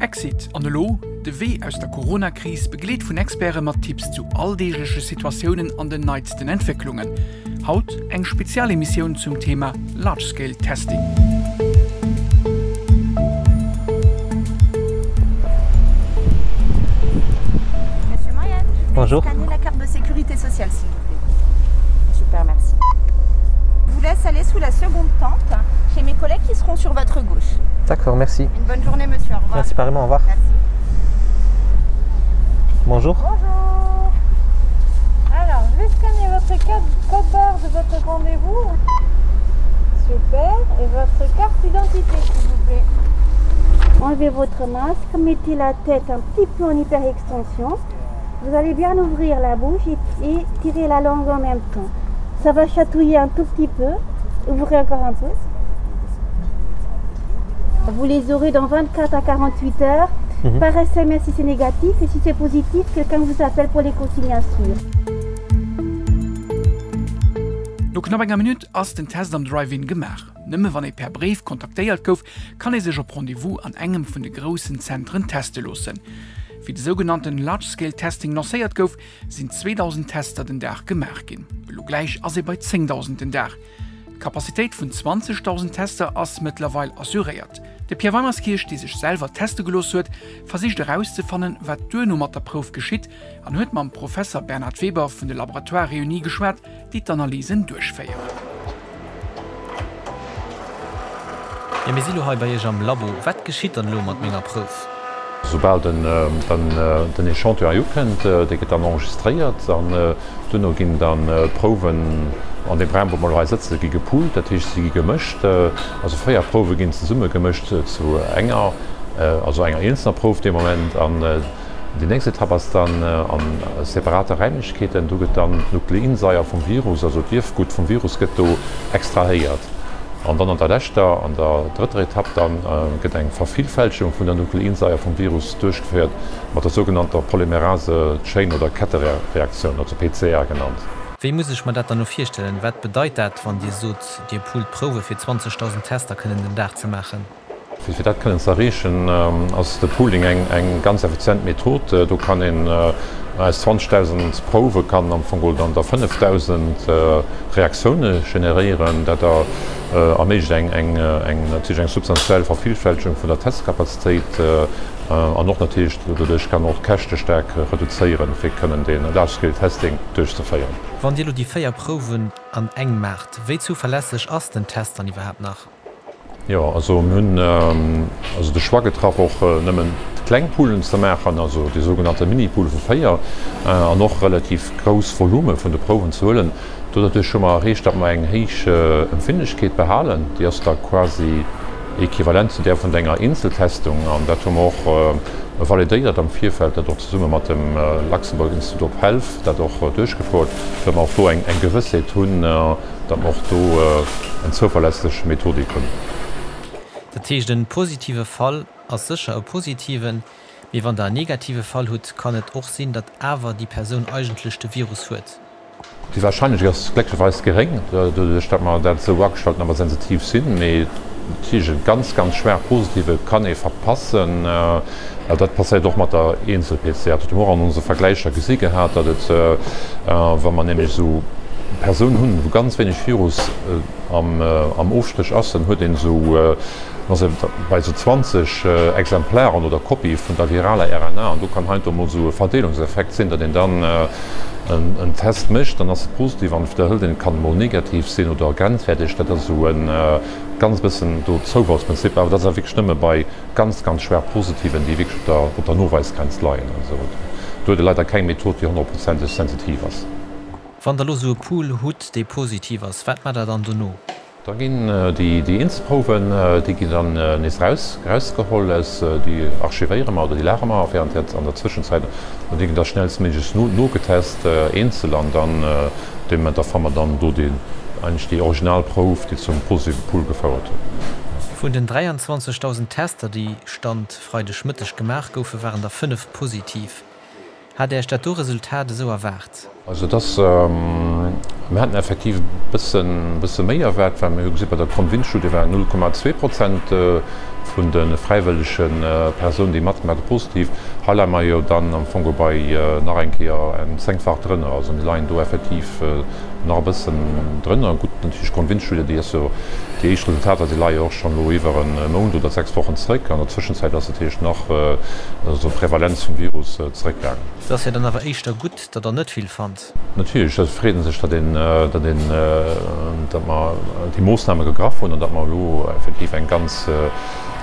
Exit an elo? De Wee aus der Corona-Kris, begleet vun Experte mat Tipps zu alldeegleche Situatiounen an den neitsten Entwécklungen. Haut eng Spezialemissioun zum Thema Large Scale Testing. Monsieur Moyen, je vais Bonjour. scanner la carte de sécurité sociale, s'il vous plaît. Super, merci. Je vous laisse aller sous la seconde tente chez mes collègues qui seront sur votre gauche. D'accord, merci. Une bonne journée, monsieur. Au revoir. Merci pareillement, au revoir. Merci. Bonjour. Bonjour. Alors, je vais scanner votre code, code barre de votre rendez-vous. Super. Et votre carte d'identité, s'il vous plaît. Enlevez votre masque, mettez la tête un petit peu en hyperextension. Vous allez bien ouvrir la bouche et, et tirer la langue en même temps. Ça va chatouiller un tout petit peu. Ouvrez encore un peu. Vous les aurez dans 24 à 48 heures. Mhm. Par SMS si c'est négatif et si c'est positif, quelqu'un vous appelle pour les consignes à suivre. No knapp enger Minutt ass den Test am Drive-In gemaach. Nëmme wann ee per Bréif kontaktéiert gouf, kann ee sech op Rendez-vous an engem vun de groussen Zentren teste loossen. Wéi de sougenannten Large Scale Testing lancéiert gouf, sinn 2.000 Tester den Dag gemaach ginn. Elo gläich ass ee bei 10.000 den Dag. D'Capacitéit vun 20.000 Tester ass mëttlerweil assuréiert. De Pierre Weimerskirch, dee sech selwer teste gelooss huet, versicht erauszefannen, wat duerno mat der Prouf geschitt an huet mam Professer Bernhard Weber vun de Laboratoires Réunis geschwat, déi d'Analysen duerchféieren. Jo, mir si lo hei bei Iech am Labo. Wat geschitt dann elo mat menger Prouf? Soubal den Echantillon hei ukënnt, dee gëtt dann enregistréiert an duerno ginn dann d'Prouwen an deem Raum, wou mer elo hei sëtzen, gi gepoolt, dat heescht si gi gemëscht. Also 4 Prouwe ginn zesumme gemëscht zu enger, also enger eenzelner Prouf dee Moment. An déi nächst Etapp ass dann a separate Räimlechkeeten, do gëtt dann d'Nukleinsaier vum Virus, also d'Ierfgutt vum Virus gëtt do extrahéiert. An dann an der leschter, an der drëtter Etapp dann, gëtt eng Vervillfältegung vun der Nukleinsaier vum Virus duerchgeféiert mat der sougenannter Polymerase Chain oder Kettereaktioun, also PCR genannt. Wéi muss ech mer dat dann elo virstellen? Wat bedeit dat, wann Dir sot, Dir poolt Prouwe fir 20.000 Tester kënnen den Dag ze maachen? Fir dat kënnen ze erreechen, ass de Pooling eng ganz effizient Method. Do kann een aus 20.000 Prouwe kann am Fong geholl dann der 5.000 Reaktioune generéieren. Dat erméiglecht eng natierlech eng substantiell Vervillfältegung vun der Testkapazitéit an och natierlech doduerch kann och d'Käschte staark reduzéieren, fir kënnen dee Large-Scale Testing duerchzeféieren. Wann Dir elo déi 4 Prouwen an eng maacht, wéi zuverlässeg ass den Test dann iwwerhaapt nach? Jo, also mir hunn also de Choix getraff, och nëmmen kleng Poolen ze maachen, also déi sougenannte Mini-Pool vu 4, an och relativ grouss Volume vun de Prouwen ze huelen. Doduerch hu mer erreecht, datt mer eng héich Empfindlechkeet behalen. Déi ass da quasi equivalent zu där vun enger Eenzeltestung. An dat hu mer och validéiert am Virfeld, dat och zesumme mat dem Luxembourg Institute of Health dat och duerchgefouert, datt mer och do eng Gewëssheet hunn, datt mer och do eng zouverlässeg Methodik hunn. Dat heescht, en positive Fall ass sécher e positiven, mee wann Der en negative Fall hutt, kann et och sinn, datt awer déi Persoun eigentlech de Virus huet. Déi Warscheinlechkeet ass glécklecherweis geréng, doduerch datt mer dat esou agestallt hunn, datt mer sensitiv sinn. Mee natierlech e ganz, ganz schwaach positive kann ee verpassen. Dat passéiert och mat der Eenzel-PCR. Dat hu mer och an onse Vergläicher gesi gehat, datt et, wa mer nämlech esou Persounen hunn, wou ganz wéineg Virus am Ofstréch ass, dann huet een esou, dann ass ee bei esou 20 Exemplaren oder Kopie vun der viraler RNA an do kann heiansdo emol esou e Verdeelungseffekt sinn, datt een dann en Test mécht, dann ass e positiv an widderhëlt een, et kann emol negativ sinn oder grenzwäerteg. Dat ass esou e ganz bëssen do Zoufallsprinzip, awer dat ass awer wierklech nëmme bei Ganz, ganz schwaach Positiven, déi wierklech op der, op der Noweisgrenz leien. Also do huet e leider keng Method, déi honnertprozenteg sensitiv ass. Wann Der elo esou e Pool hutt, dee positiv ass, wat maacht Der dann dono? Da ginn déi, déi eenzel Prouwen, déi ginn dann nees eraus, erausgeholl aus, déi archivéiere mer oder déi lagere mer während der, an der Zwëschenzäit an déi ginn da schnellstméiglechst no, nogetest, eenzel an dann Dee Moment, da fanne mer dann do déi eigentlech déi original Prouf, déi zum positive Pool gefouert huet. Vun den 23.000 Tester, déi Stand Freidegmëtteg gemaach goufen, waren der 5 positiv. Hat Iech dat do Resultat esou erwaart? Also et ass, mir haten effektiv e bësse, bësse méi erwaart, well mir hu gesi bei der Convince-Studie waren 0,2 Prozent. vun de fräiwëllege Persounen, déi matgemaach hunn, positiv. Hei leie mer jo dann am Fong bei nach eng Kéier eng zéngfach drënner. Also mir leien do effektiv nach e bëssen drënner. Gutt, natierlech d'Grondwindstudie, déi ass jo, déi éischt Resultater, déi leie jo och schonn elo iwwer e Mount oder 6 Wochen zréck. An der Zwëschenzäit ass natierlech nach also d'Prevalenz vum Virus zréckgaangen. Et ass jo dann awer éischter gutt, datt Der net vill fannt. Natierlech, et freet ee sech, datt een, datt een, datt mer déi Moossname gegraff hunn an datt mer elo effektiv eng ganz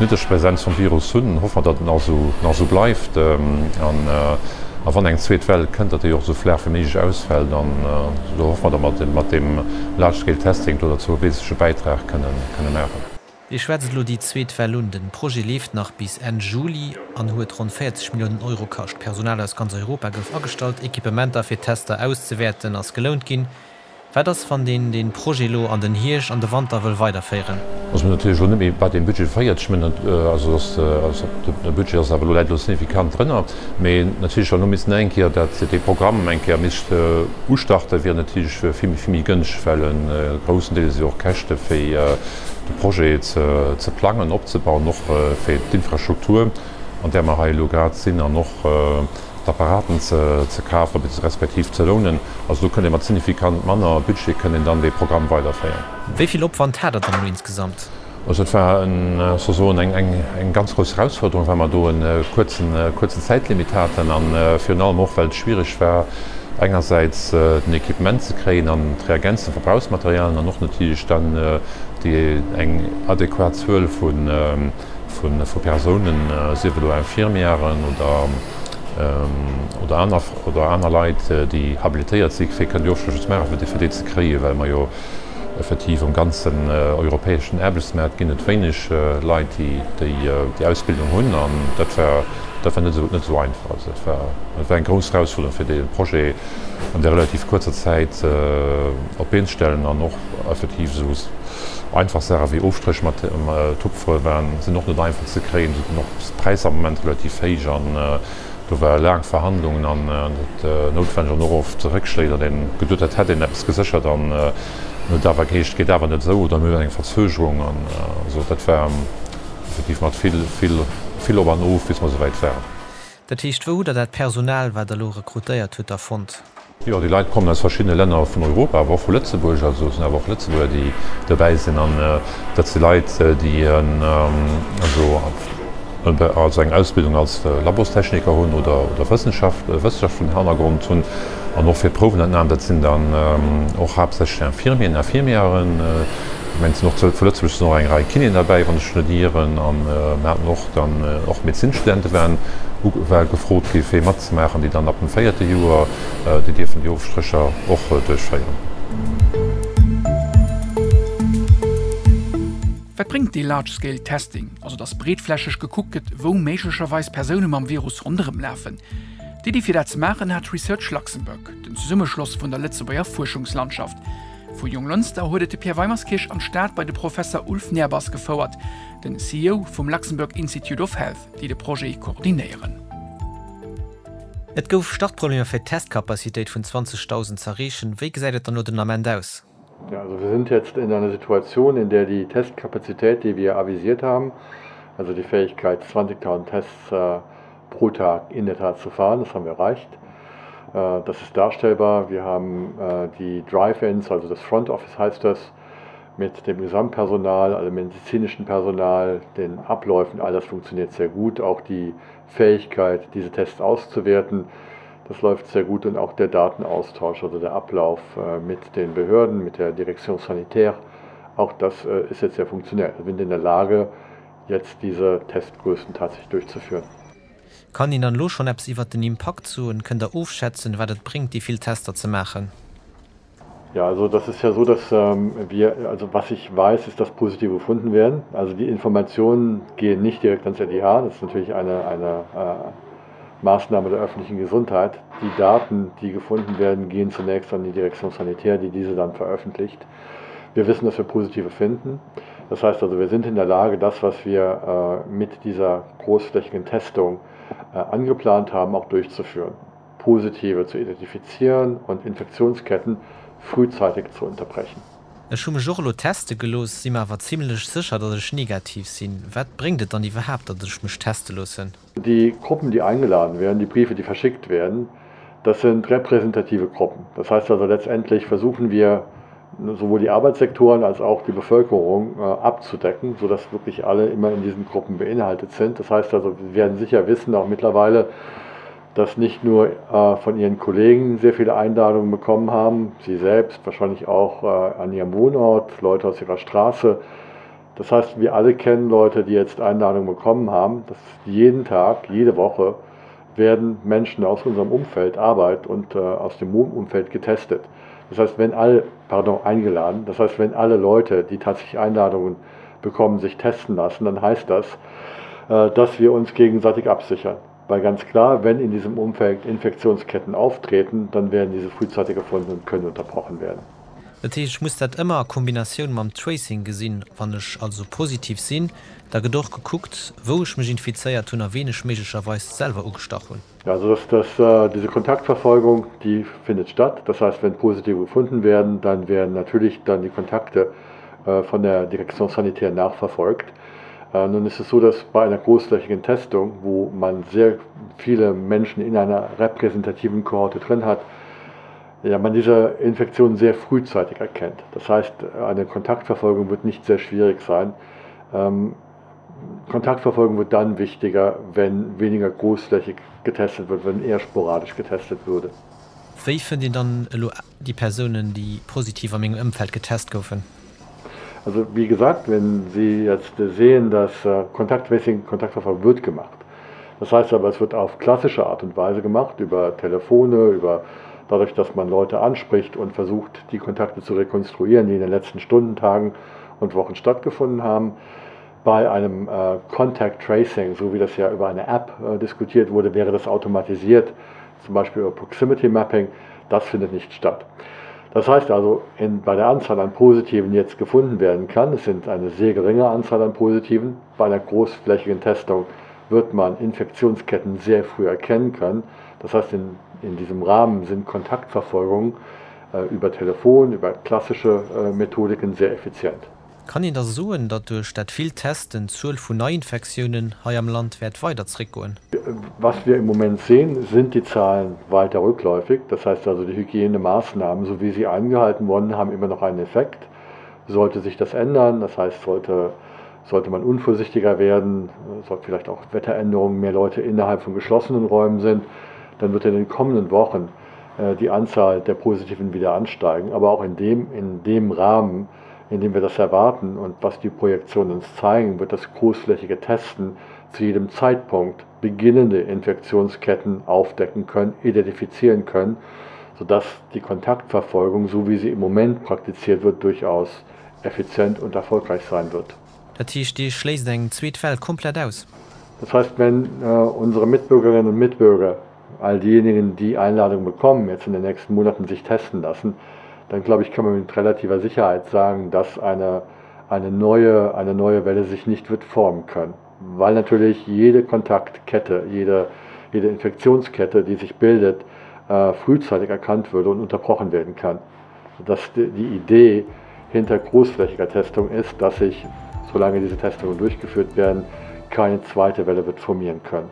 niddreg Präsenz vum Virus hunn. Hoffe mer, datt et nach esou, nach esou bleift an a wann eng zweet Well kënnt, datt déi och esou flaach wéi méiglech ausfält. An do hoffe mer, datt mer mat deem Large Scale Testing do derzou e wesentleche Bäitrag kënnen, kënne maachen. Dir schwätzt elo déi zweet Well un. Den Projet leeft nach bis Enn Juli an huet ronn 40 Milliounen Euro kascht. Personal aus ganz Europa gouf agestallt, Equipementer fir d'Tester auszewäerten ass gelount ginn. Wat ass wann een dee Projet elo an den Hierscht an de Wanter wëll weiderféieren? Also mir hunn natierlech elo net méi bei deem Budget 40 Milliounen, also dass de Budget ass awer elo, läit elo signifikant drënner. Mee natierlech wann elo missten eng Kéier dat dee Programm eng Kéier misst ustarten, wier natierlech vill méi gënschteg, well e groussen Deel si jo och Käschte fir de Projet ze plangen, opzebauen, och fir d'Infrastruktur, an där mer hei elo grad sinn, an och d'Apparaten ze kafen, respektiv ze lounen. Also do kënnt ee mat signifikant manner Budget kënnt een dann dee Programm weiderféieren. Wéi vill Opwand hat Der dann elo insgesamt? Also et war sozesoen eng ganz grouss Erausfuerderung, well mer do e kuerzen Zäitlimit haten a virun allem och, well et schwiereg war, engersäits den Equipement ze kréien an d'Reagenzen, d'Verbrauchsmaterialien an och natierlech dann déi eng adequat Zuel vu Persounen, sief elo Infirmièren oder aner Leit, déi habilitéiert si fir kënnen déi Ofschlësse ze maachen, fir déi ze kréien, well mer jo effektiv um ganzen europäeschen Aarbechtsmaart ginn et wéineg Leit, déi déi Ausbildung hunn an dat war dat war net esou net esou einfach. Also dat war dat war eng grouss Erausfuerderung fir dee Projet an där relativ kuerzer Zäit op d'Been ze stellen an och effektiv esou einfach Saache wéi Ofstréch mat Tupfere waren sinn och net einfach ze kréien. Do sinn och d'Präisser am Moment relativ héich an Do ware laang Verhandlungen an et noutwenneg an och oft Réckschléi, datt een geduet hat, hätt een eppes geséchert an et huet awer geheescht, et geet awer net esou oder mir hunn eng Verzögerung an esou. Dat war effektiv mat vill, vill, vill op an of, bis mer esouwäit waren. Dat heescht, wou hutt Der dat Personal, wat Der elo rekrutéiert hutt, da fonnt? Jo, déi Leit kommen aus verschiddene Länner vun Europa, awer och vu Lëtzebuerg. Also et sinn awer och Lëtzebuerger, déi dobäi sinn. An dat si Leit, déi also eng Ausbildung als Labostechniker hunn oder Wëssenschaft, wëssenschaftlechen Hannergrond hunn. An och fir d'Prouwenentnam, dat sinn dann och haaptsächlech Infirmieren, Infirmièren. Ech mengen, et sinn och vu Lëtzebuerg sinn och eng Rei Kinéen derbäi, wann ech net ieren. A mir haten och dann och Medezinsstudente waren war gefrot gi fir matzemaachen, déi dann ab dem véierte Joer, déi dierfen déi Ofstrécher och duerchféieren. Wat bréngt dee Large Scale Testing, also datt breetflächeg gekuckt gëtt, wou méiglecherweis Persoune mam Virus ronderëm lafen? D'Iddi fir dat ze maachen hat Research Luxembourg, den Zesummeschloss vun der Lëtzebuerger Fuerschungslandschaft. Vu Jonglënster huet et de Pierre Weimerskirch an d'Stad bei de Professer Ulf Nehrbass gefouert, den CEO vum Luxembourg Institute of Health, déi de Projet koordinéieren. Et gouf Startproblemer fir d'Testcapacitéit vun 20.000 z'erreechen. Wéi gesäit et dann elo den Ament aus? Ja, also wir sind jetzt in einer Situation, in der die Testcapacität, die wir avisiert haben, also die Fähigkeit 20.000 Tests äh, pro Tag in der Tat zu fahren, das haben wir erreicht. Äh, das ist darstellbar. Wir haben äh, die Drive-ins, also das Front Office heißt das, mit dem Gesamtpersonal, also medizinischen Personal, den Abläufen, all das funktioniert sehr gut. Auch die Fähigkeit, diese Tests auszuwerten, das läuft sehr gut und auch der Datenaustausch, also der Ablauf äh, mit den Behörden, mit der Direktion sanitär, auch das äh, ist jetzt sehr funktionell. Wir sind in der Lage, jetzt diese Testgrößen tatsächlich durchzuführen. Kann een dann elo schonn eppes iwwert den Impakt soen? Kënnt der ofschätzen, wat et bréngt, déi vill Tester ze maachen? Ja, also das ist ja so, dass ähm, wir, also was ich weiß, ist, dass positive gefunden werden. Also die Informationen gehen nicht direkt ans LIH, das ist natürlich eine, eine äh, Maßnahme der öffentlichen Gesundheit. Die Daten, die gefunden werden, gehen zunächst an die Direktion Sanitär, die diese dann veröffentlicht. Wir wissen, dass wir positive finden. Das heißt also, wir sind in der Lage, das, was wir äh, mit dieser großflächigen Testung äh, angeplant haben, auch durchzuführen. Positive zu identifizieren und Infektionsketten frühzeitig zu unterbrechen. Ech hu mech och elo teste gelooss, si mer awer zimlech sécher, datt ech negativ sinn. Wat bréngt et dann iwwerhaapt, datt ech mech teste loossen? Die Gruppen, die eingeladen werden, die Briefe, die verschickt werden, das sind repräsentative Gruppen. Das heißt also letztendlich versuchen wir sowohl die Arbeitssektoren als auch die Bevölkerung äh, abzudecken, sodass wirklich alle immer in diesen Gruppen beinhaltet sind. Das heißt also, wir werden sicher wissen, auch mittlerweile, dass nicht nur äh, von ihren Kollegen sehr viele Einladungen bekommen haben, sie selbst wahrscheinlich auch äh, an ihrem Wohnort, Leute aus ihrer Straße. Das heißt, wir alle kennen Leute, die jetzt Einladungen bekommen haben, dass jeden Tag, jede Woche werden Menschen aus unserem Umfeld Arbeit und äh, aus dem Wohnumfeld getestet. Das heißt, wenn alle pardon, eingeladen, das heißt, wenn alle Leute, die tatsächlich Einladungen bekommen, sich testen lassen, dann heißt das, äh, dass wir uns gegenseitig absichern. Weil ganz klar, wenn in diesem Umfeld Infektionsketten auftreten, dann werden diese frühzeitig gefunden und können unterbrochen werden. Dat heescht, ech muss dat ëmmer a Kombinatioun mam Tracing gesinn. Wann ech also positiv sinn, da gëtt och gekuckt, wou ech mech infizéiert hunn a ween ech méiglecherweis selwer ugestach hunn. Also dass, dass äh, diese Kontaktverfolgung, die findet statt. Das heißt, wenn Positive gefunden werden, dann werden natürlich dann die Kontakte äh, von der Direktion sanitär nachverfolgt. Äh, nun ist es so, dass bei einer großflächigen Testung, wo man sehr viele Menschen in einer repräsentativen Kohorte drin hat, ja, man diese Infektion sehr frühzeitig erkennt. Das heißt, eine Kontaktverfolgung wird nicht sehr schwierig sein. Ähm, Kontaktverfolgung wird dann wichtiger, wenn weniger großflächig getestet wird, wenn eher sporadisch getestet würde. Wéi fënnt een dann elo déi Persounen, déi positiv a mengem Ëmfeld getest goufen? Also wie gesagt, wenn Sie jetzt sehen, dass äh, Kontakttracing, Kontaktverfolgung wird gemacht. Das heißt aber, es wird auf klassische Art und Weise gemacht, über Telefone, über dadurch, dass man Leute anspricht und versucht, die Kontakte zu rekonstruieren, die in den letzten Stunden, Tagen und Wochen stattgefunden haben. Bei einem äh, Contact Tracing, so wie das ja über eine App äh, diskutiert wurde, wäre das automatisiert, zum Beispiel über Proximity Mapping. Das findet nicht statt. Das heißt also, in, bei der Anzahl an Positiven, die jetzt gefunden werden kann, es sind eine sehr geringe Anzahl an Positiven, bei einer großflächigen Testung wird man Infektionsketten sehr früh erkennen können. Das heißt, in, in diesem Rahmen sind Kontaktverfolgungen äh, über Telefon, über klassische äh, Methodiken sehr effizient. Kann een da soen, datt duerch dat villt Testen d'Zuel vun Neiinfektiounen hei am Land wäert weider zréckgoen? Was wir im Moment sehen, sind die Zahlen weiter rückläufig. Das heißt also, die Hygienemaßnahmen, so wie sie eingehalten wurden, haben immer noch einen Effekt. Sollte sich das ändern, das heißt, sollte, sollte man unvorsichtiger werden, sollte vielleicht auch Wetteränderungen, mehr Leute innerhalb von geschlossenen Räumen sind, dann wird in den kommenden Wochen äh, die Anzahl der Positiven wieder ansteigen. Aber auch in dem, in dem Rahmen, in dem wir das erwarten und was die Projektionen uns zeigen, wird das großflächige Testen zu jedem Zeitpunkt beginnende Infektionsketten aufdecken können, identifizieren können, sodass die Kontaktverfolgung, so wie sie im Moment praktiziert wird, durchaus effizient und erfolgreich sein wird. Dat heescht, Dir schléisst eng zweet Well komplett aus? Das heißt, wenn äh, unsere Mitbürgerinnen und Mitbürger, all diejenigen, die Einladung bekommen, jetzt in den nächsten Monaten sich testen lassen, dann glaube ich, kann man mit relativer Sicherheit sagen, dass eine, eine, neue, eine neue Welle sich nicht wird formen können. Weil natürlich jede Kontaktkette, jede, jede Infektionskette, die sich bildet, äh, frühzeitig erkannt würde und unterbrochen werden kann. Dass die, die Idee hinter großflächiger Testung ist, dass sich, solange diese Testungen durchgeführt werden, keine zweite Welle wird formieren können.